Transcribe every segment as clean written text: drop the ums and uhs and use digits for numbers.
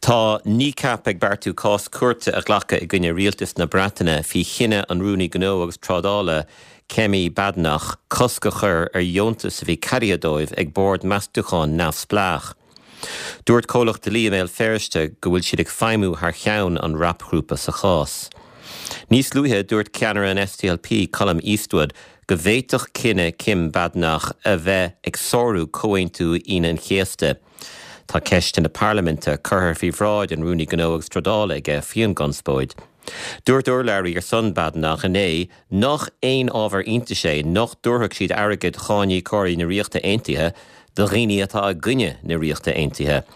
Tá Kneecap ag beartú cás cúirte a ghlacadh i gcoinne rialtas na Breataine faoi chinneadh an Rúnaí Gnó agus Trádála, Kemi Badenoch, cosc a chur ar dheontas a bhí ceadaithe dóibh ag bord meastúcháin neamhspleách. Dúirt comhlacht dlí i mBéal Feirste go bhfuil siad ag feidhmiú thar cheann an rapghrúpa sa chás. Níos luaithe, dúirt ceannaire an SDLP, Colum Eastwood, go bhféadfadh cinneadh Kim Badenoch a bheith ag sárú Comhaontú Aoine an Chéasta. Tá ceisteanna parlaiminte curtha faoi bhráid an Rúnaí Gnó agus Trádála aige faoin gconspóid. Dúirt urlabhraí ar son Badenoch inné nach aon ábhar iontais é nach dtabharfadh siad airgead cháiníocóirí na Ríochta Aontaithe do dhaoine atá i gcoinne na Ríochta Aontaithe.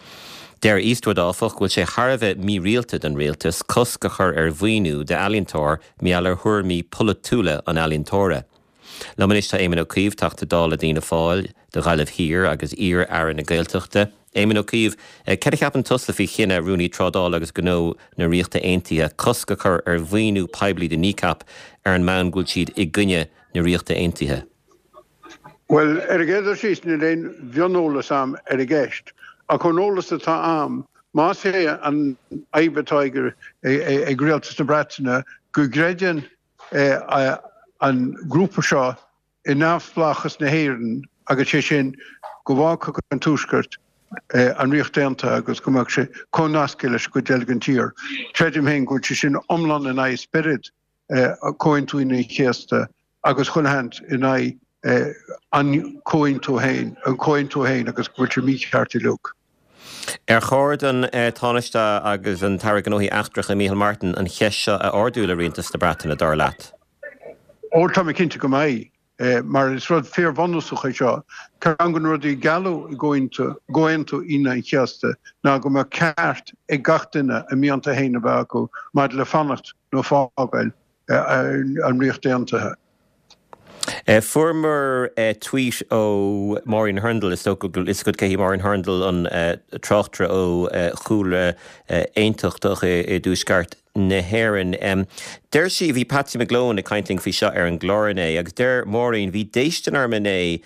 Deir Eastwood, áfach, go bhfuil sé thar a bheith mírialta don rialtas cosc a chur ar mhaoiniú d'ealaíontóir mar gheall ar thuairimí polaitiúla an ealaíontóra. Liom anois tá Éamon Ó Cuív, Teachta Dála d'Fhianna Fáil do Ghaillimh Thiar agus iar-Aire na Gaeltachta. Éamon Ó Cuív, céard a cheapann tusa faoi chinneadh Rúnaí Trádála agus Gnó na Ríochta Aontaithe cosc a chur ar mhaoiniú poiblí do Kneecap ar an mbonn go bhfuil siad i gcoinne na Ríochta Aontaithe? Bhuel, ar an gcéad dul síos, níl aon mhioneolas a'm ar an gceist, ach ón eolas atá a'm, más é an fhadhb atá ag Rialtas na Breataine go gcreideann an grúpa seo i neamhspleáchas na hÉireann agus sé sin go bhfágfadh an Tuaisceart an Ríocht Aontaithe agus go mbeadh sé comhnasctha leis an gcuid eile den tír. Creidim féin go bhfuil sé sin iomlán in aghaidh spiorad Chomhaontú Aoine an Chéasta agus chuile sheans in aghaidh an comhaontú féin, an comhaontú féin agus go bhfuil sé mícheart uilig. Ar chóir don Tánaiste agus an tAire Gnóthaí Eachtracha Micheál Martin an cheist seo a ardú le Rialtas na Breataine, dar leat? Ó, tá mé cinnte go mbeidh, mar is rud fíorbhunúsach é seo. Ceann de na rudaí a gealladh i gComhaontú Aoine an Chéasta ná go mbeadh ceart ag gach duine a mianta féin a bheith acu maidir le fanacht nó fágáil an Ríocht Aontaithe. Fuaireamar tweet ó Maureen Hurndall, is dócha go bhfuil fhios agat cé hí Maureen Hurndall, an tráchtaire ó chúlra aontachtach i dtuaisceart na hÉireann. Deir sí, bhí Patsy McGlone ag caint linn faoi seo ar an gclár inné, agus deir Maureen, bhí déistin orm inné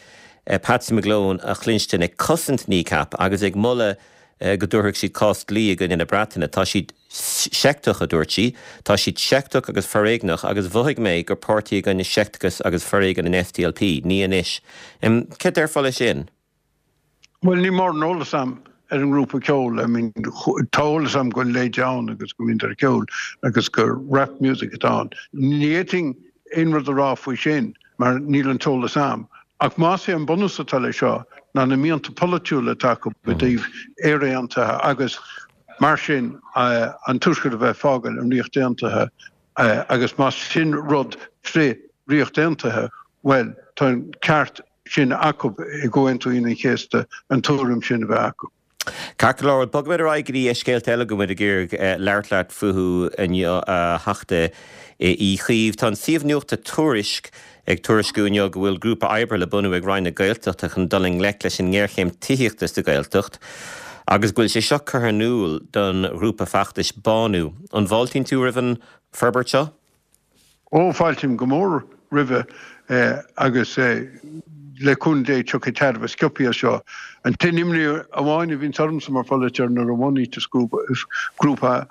Patsy McGlone a chluinstin ag cosaint Kneecap agus ag moladh go dtabharfadh siad cás dlí i gcoinne na Breataine. Tá siad seicteach, a dúirt sí. Tá siad seicteach agus foréigneach agus mhothaigh mé gur páirtí i gcoinne seicteachas agus foréigean an SDLP. Ní anois. Céard déarfá leis sin? Bhuel, níl mórán eolas a'm ar an ngrúpa ceoil. I mean, tá eolas a'm go bhfuil leid ann agus go mbíonn ar ceol agus gur rap music atá ann. Ní fhéadfainn aon rud a rá faoi sin mar níl an t-eolas a'm. Ach más é an bunús atá leis seo ná na mianta polaitiúla atá acu i dtaobh Éire Aontaithe agus mar sin an Tuaisceart a bheith ag fágáil an Ríocht Aontaithe agus más sin rud frith Ríocht Aontaithe, bhuel tá an ceart sin acu i gComhaontú Aoine an Chéasta an tuairim sin a bheith acu. Ceart go leor, bogfaimid ar aghaidh go dtí scéalta eile go bhfuil muid ag iarraidh labhairt leat fúthu inniu, a Theachta Uí Chuív. Tá an suíomh nuachta Tuairisc ag tuairisciú inniu go bhfuil grúpa oibre le bunú ag Roinn na Gaeltachta chun dul i ngleic leis an ngéarchéim tithíochta sa Ghaeltacht agus go bhfuil sé seo curtha in iúl don ghrúpa feachtais Bánú. An bhfáiltíonn tú roimh an forbairt seo? Ó, fáiltím go mór roimhe agus le cúnamh Dé tiocfaidh tairbhe sciobtha as seo. An t-aon imní amháin a bhíonns ormsa mar pholaiteoir nuair a bhunaíteas grúpa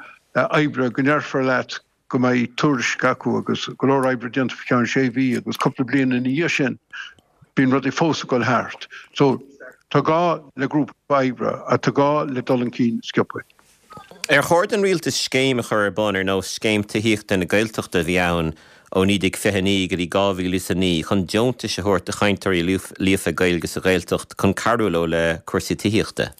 oibre go ndéarfar leat go mbeidh tuairisc acu agus go leor oibre déanta faoi cheann sé mhí agus cúpla bliain ina dhiaidh sin bíonn rudaí fós ag dul thart. So, tá gá le grúpa oibre ach tá gá le dul chun cinn sciobtha. Ar chóir don rialtas scéim a chur ar bun ar nós Scéim Tithíochta na Gaeltachta a bhí ann ó 1929 go dtí 2009 chun deontais a thabhairt do chainteoirí líofa Gaeilge sa Ghaeltacht chun cabhrú leo le cúrsaí tithíochta?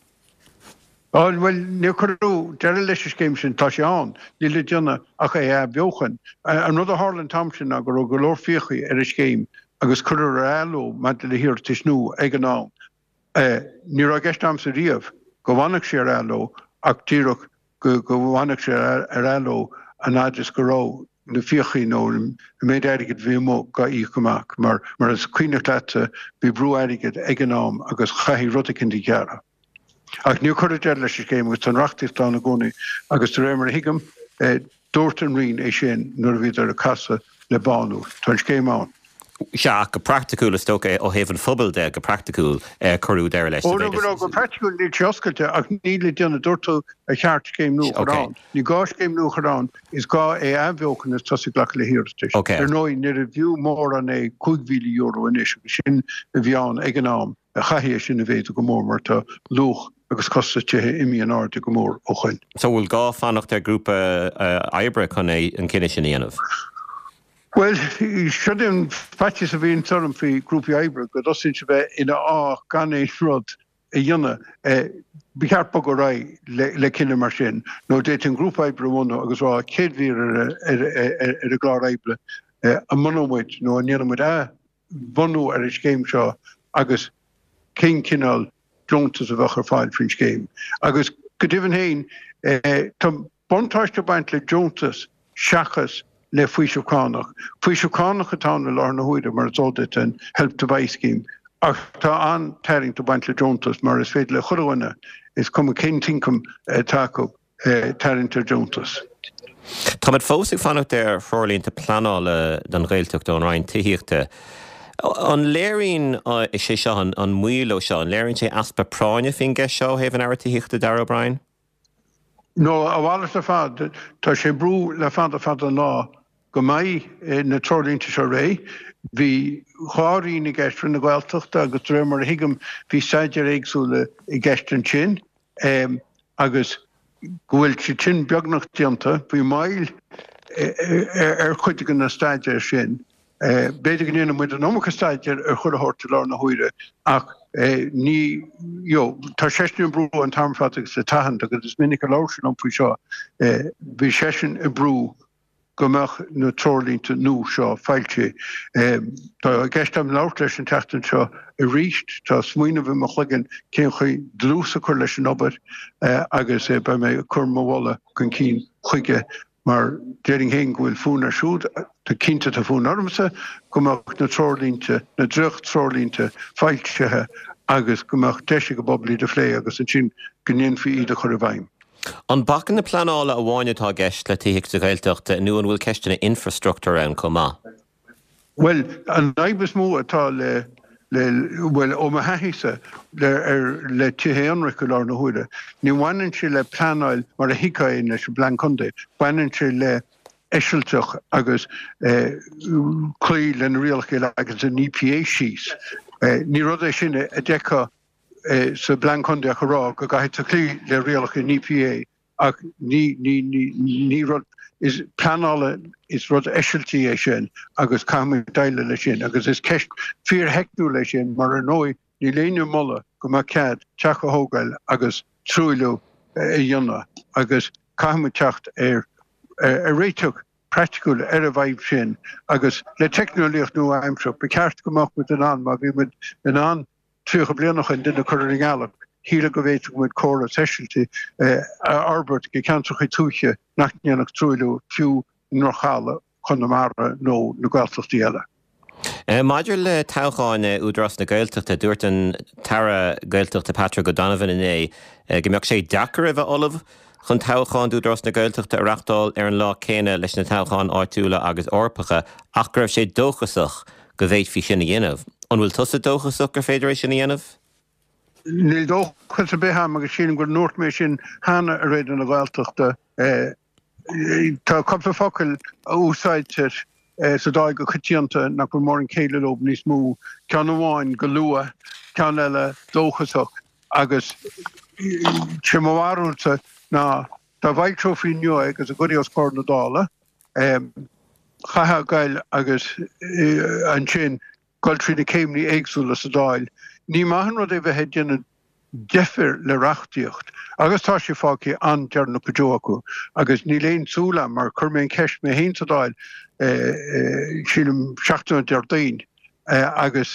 Bhuel, níor cuireadh deireadh leis an scéim sin, tá sé ann, níl le déanamh ach é a athbheochan. An rud a tharla an t-am sin ná go raibh go leor fiacha ar an scéim agus cuireadh ar athló maidir le hiarratais nua ag an am. Ní raibh i gceist a'msa riamh go bhfanfadh sé ar athló ach díreach go bhfanfadh sé ar athló an fhad is go raibh na fiachaí nó an méid airgid a bhí amuigh dhá íoc amach mar mar is cuimhneach leatsa bhí brú airgid ag an am agus chaithfí rud eicínt a ghearradh. Ach níor cuireadh deireadh leis an scéim agus tá an reachtaíocht ann i gcónaí agus de réir mar a thuigim dúirt an Roinn é sin nuair a bhíodar ag casadh le Bánú. Tá an scéim ann. Sea, ach go praiticiúil, is dócha, ó thaobh an phobail de, go praiticiúil, cuireadh deireadh leis. Ó, no, no, go praiticiúil níl sé oscailte ach níl le déanamh, dúirt tú ar cheart scéim nua a chur ann. Ní gá scéim nua a chur ann, is gá é a athbheochan is tosaí ag glacadh le hiarratais. Ar ndóigh, níorbh fhiú mórán é €5,000 anois agus sin a bhí ann ag an am, chaithfí é sin a mhéadú go mór mar tá luach agus costas tithe imithe in airde go mór ó shoin. So bhfuil gá fanacht ar ghrúpa oibre chun é an cinneadh sin a dhéanamh? Bhuel, seo é an faitíos a bhíonns orm faoi grúpaí oibre, go dtosaíonn siad bheith ina fháth gan aon rud a dhéanamh. Ba cheart bogadh ar aghaidh le cinneadh mar sin, nó d'fhéadfaí an grúpa oibre a bhunú agus rá chéad mhír ar an gclár oibre, an mbunóidh muid nó an ndéanfaidh muid athbhunú ar an scéim seo agus cén cineál deontas a bheadh ar fáil faoin scéim. Agus go deimhin féin, tá. Buntáiste ag baint le deontas seachas le faoiseamh cánach. Faoiseamh cánach atá ann i láthair na huaire, mar is eol duit, an Help to Buy scheme, ach tá an-tarraingt ag baint le deontas mar is féidir le chuile dhuine, is cuma cén t-ioncam atá acu, tarraingt ar deontas. Táimid fós ag fanacht ar threoirlínte pleanála don Ghaeltacht ón Roinn Tithíochta. An léiríonn sé seo, an moill seo, an léiríonn sé easpa práinne faoin gceist seo ó thaobh an Aire Tithíochta, Darragh O'Brien? No, a mhalairt ar fad. Tá sé ag brú le fada fada an lá go mbeidh na treoirlínte seo réidh. Bhí dhá roinn i gceist, Roinn na Gaeltachta agus de réir mar a thuigim bhí staidéir éagsúla i gceist ansin agus go bhfuil siad sin beagnach déanta. Bhí moill ar chuid de na staidéir sin. B'fhéidir go ndéanann muid an iomarca staidéir ar chuile shórt i láthair na huaire ach ní, you know, tá seisean ag brú an t-am ar fad agus le tathant agus is minic a labhair sé liom faoi seo, bhí seisean ag brú go mbeadh na treoirlínte nua seo foilsithe. Tá i gceist agam labhairt leis an tseachtain seo arís, tá smaoineamh i mo chloigeann cén chaoi dlús a chur leis an obair agus beidh mé ag cur mo mholadh chun cinn chuige Mar déarfainn féin go bhfuil fonn air siúd, tá cinnte tá fonn ormsa, go mbeadh na treoirlínte, na dréacht-treoirlínte foilsithe agus go mbeadh deis ag an bpobal iad a phlé agus ansin go ndéanfaí iad a chur i bhfeidhm. An bacanna pleanála amháin atá i gceist le tithíocht sa Ghaeltacht nó an bhfuil ceisteanna infreastruchtúir ann chomh maith? Bhuel, an fhadhb is mó atá le, le, bhuel, ó mo thaithíse, le, ar, le tithe aonraic i láthair na huaire, ní bhaineann sé le pleanáil mar a thuigfeá é leis an bPlean Contae, baineann sé le eisilteach agus eh, cloí le na rialacha a leagann an EPA síos. Eh, ní rud é sin a d'fheicfeá eh, sa bPlean Contae ach a rá go gcaithfidh tú cloí le rialacha an EPA Ach ní, ní, ní, ní rud is pleanála, is rud eisiltí é sin agus caithfimid déileáil leis sin agus is ceist fíortheicniúil é sin mar ar ndóigh níl éinne ag moladh go mbeadh cead teach a thógáil agus truailliú a dhéanamh agus caithfimid teacht ar ar réiteach praiticiúil ar an bhfadhb sin agus le teicneolaíocht nua-aimseartha ba cheart go mbeadh muid in ann má bhí muid in ann 30 bliain ó shin duine a chur ar an ngealach, shílfeá go bhféadfadh muid córas eisiltigh a fhorbairt go ceantracha tuaithe nach ndéanfadh truailliú fiú i ndroch-thalamh Chonamara nó na Gaeltachtaí eile. Maidir le toghcháin Údarás na Gaeltachta, dúirt an tAire Gaeltachta Patrick O'Donovan inné go mbeadh sé deacair a bheith ullamh chun toghcháin d'Údarás na Gaeltachta a reáchtáil ar an lá céanna leis na toghcháin áitiúla agus Eorpacha ach go raibh sé dóchasach go bhféadfaí sin a dhéanamh. An bhfuil tusa dóchasach gur féidir é sin a dhéanamh? Níl dóchas ar bith a'm agus sílim go ndúirt mé sin cheana ar Raidió na Gaeltachta. Tá cúpla focal a úsáidtear sa Dáil go coitianta nach bhfuil mórán céille leo níos mó, ceann amháin go luath, ceann eile dóchasach agus sé mo bharúilsa ná dá bhfoilseofaí inniu é agus a gcuirfí os comhair na Dála, chaithfeá goil agus ansin goil trí na céimeanna éagsúla sa Dáil. Ní maith an rud é bheith ag déanamh deifir le reachtaíocht agus tá sé fágtha an-deireanach go deo acu agus níl aon tsúil a'm mar chuir mé an cheist mé féin sa Dáil sílim seachtain ó Déardaoin agus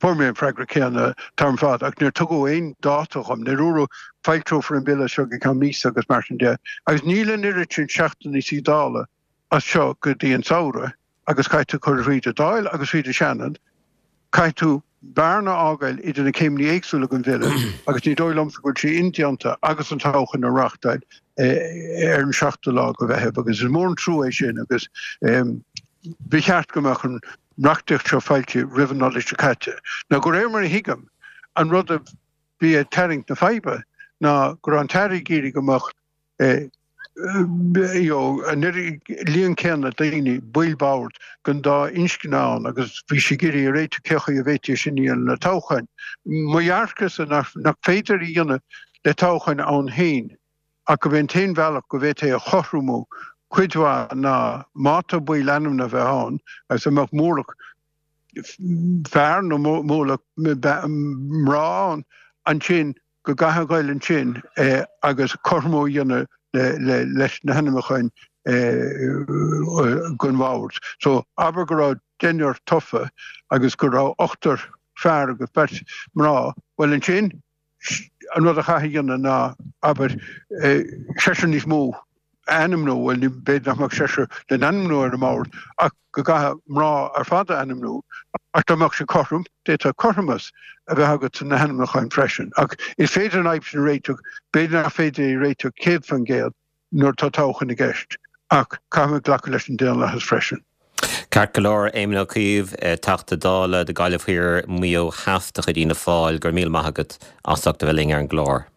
fuair mé an freagra céanna an t-am ar fad ach níor tugadh aon dáta dhom, níor dúradh foilseofar an bille seo go ceann míosa agus mar sin de agus níl an oiread sin seachtainí suí Dála as seo go dtí an samhradh. agus caithfidh tú cur thríd an Dáil agus thríd an Seanad, caithfidh tú bearna a fhágáil idir na céimeanna éagsúla den bhille agus ní dóigh liomsa go bhfuil sé indéanta agus an toghchán a reáchtáil ar an seachtú lá de Mheitheamh agus is mór an trua é sin agus ba cheart go mbeadh an. reachtaíocht seo foilsithe roimh an Nollaig seo caite. Now de réir mar a thuigim, an rud a bhí ag tarraingt na faidhbe ná go raibh an tAire ag iarraidh go mbeadh you know an líon céanna daoine, baill boird, den dá inscne ann agus bhí sé ag iarraidh a réiteach cé chaoi a bhféadfaí é sin a dhéanamh le toghcháin. Mo dhearcadhsa nach féidir a dhéanamh le toghcháin ann féin ach gurb é an t-aon bhealach go bhféadfaí é a chothromú cuid mhaith ná má tá baill ainmnithe a bheith ann agus a mbeadh mórlach fear nó mórlach mná ann ansin go gcaithfeá a ghoil ansin agus cothromú a dhéanamh leis na hainmniúcháin don bhord. So abair go raibh deichniúr tofa agus go raibh ochtar fear agus beirt mná, bhuel ansin an rud a chaithfeá a dhéanamh ná abair seisear níos mó a ainmniú, bhuel b'fhéidir nach mbeadh seisear le n-ainmniú ar an mbord ach go gcaithfeá mná ar fad a ainmniú ach dá mbeadh sé cothrom, d'fhéadfá cothromas a bheith agat sna hainmniúcháin freisin. Ach is féidir an fhadhb sin a réiteach, b'fhéidir nach féidir é a réiteach 100% nuair atá toghchán i gceist ach caithfimid glacadh leis an daonlathas freisin. Ceart go leor, Éamon Ó Cuív, Teachta Dála do Gaillimh Thiar, Maigh Eo Theas de chuid Fhianna Fáil, go raibh míle maith agat as ucht a bheith linn ar an gclár.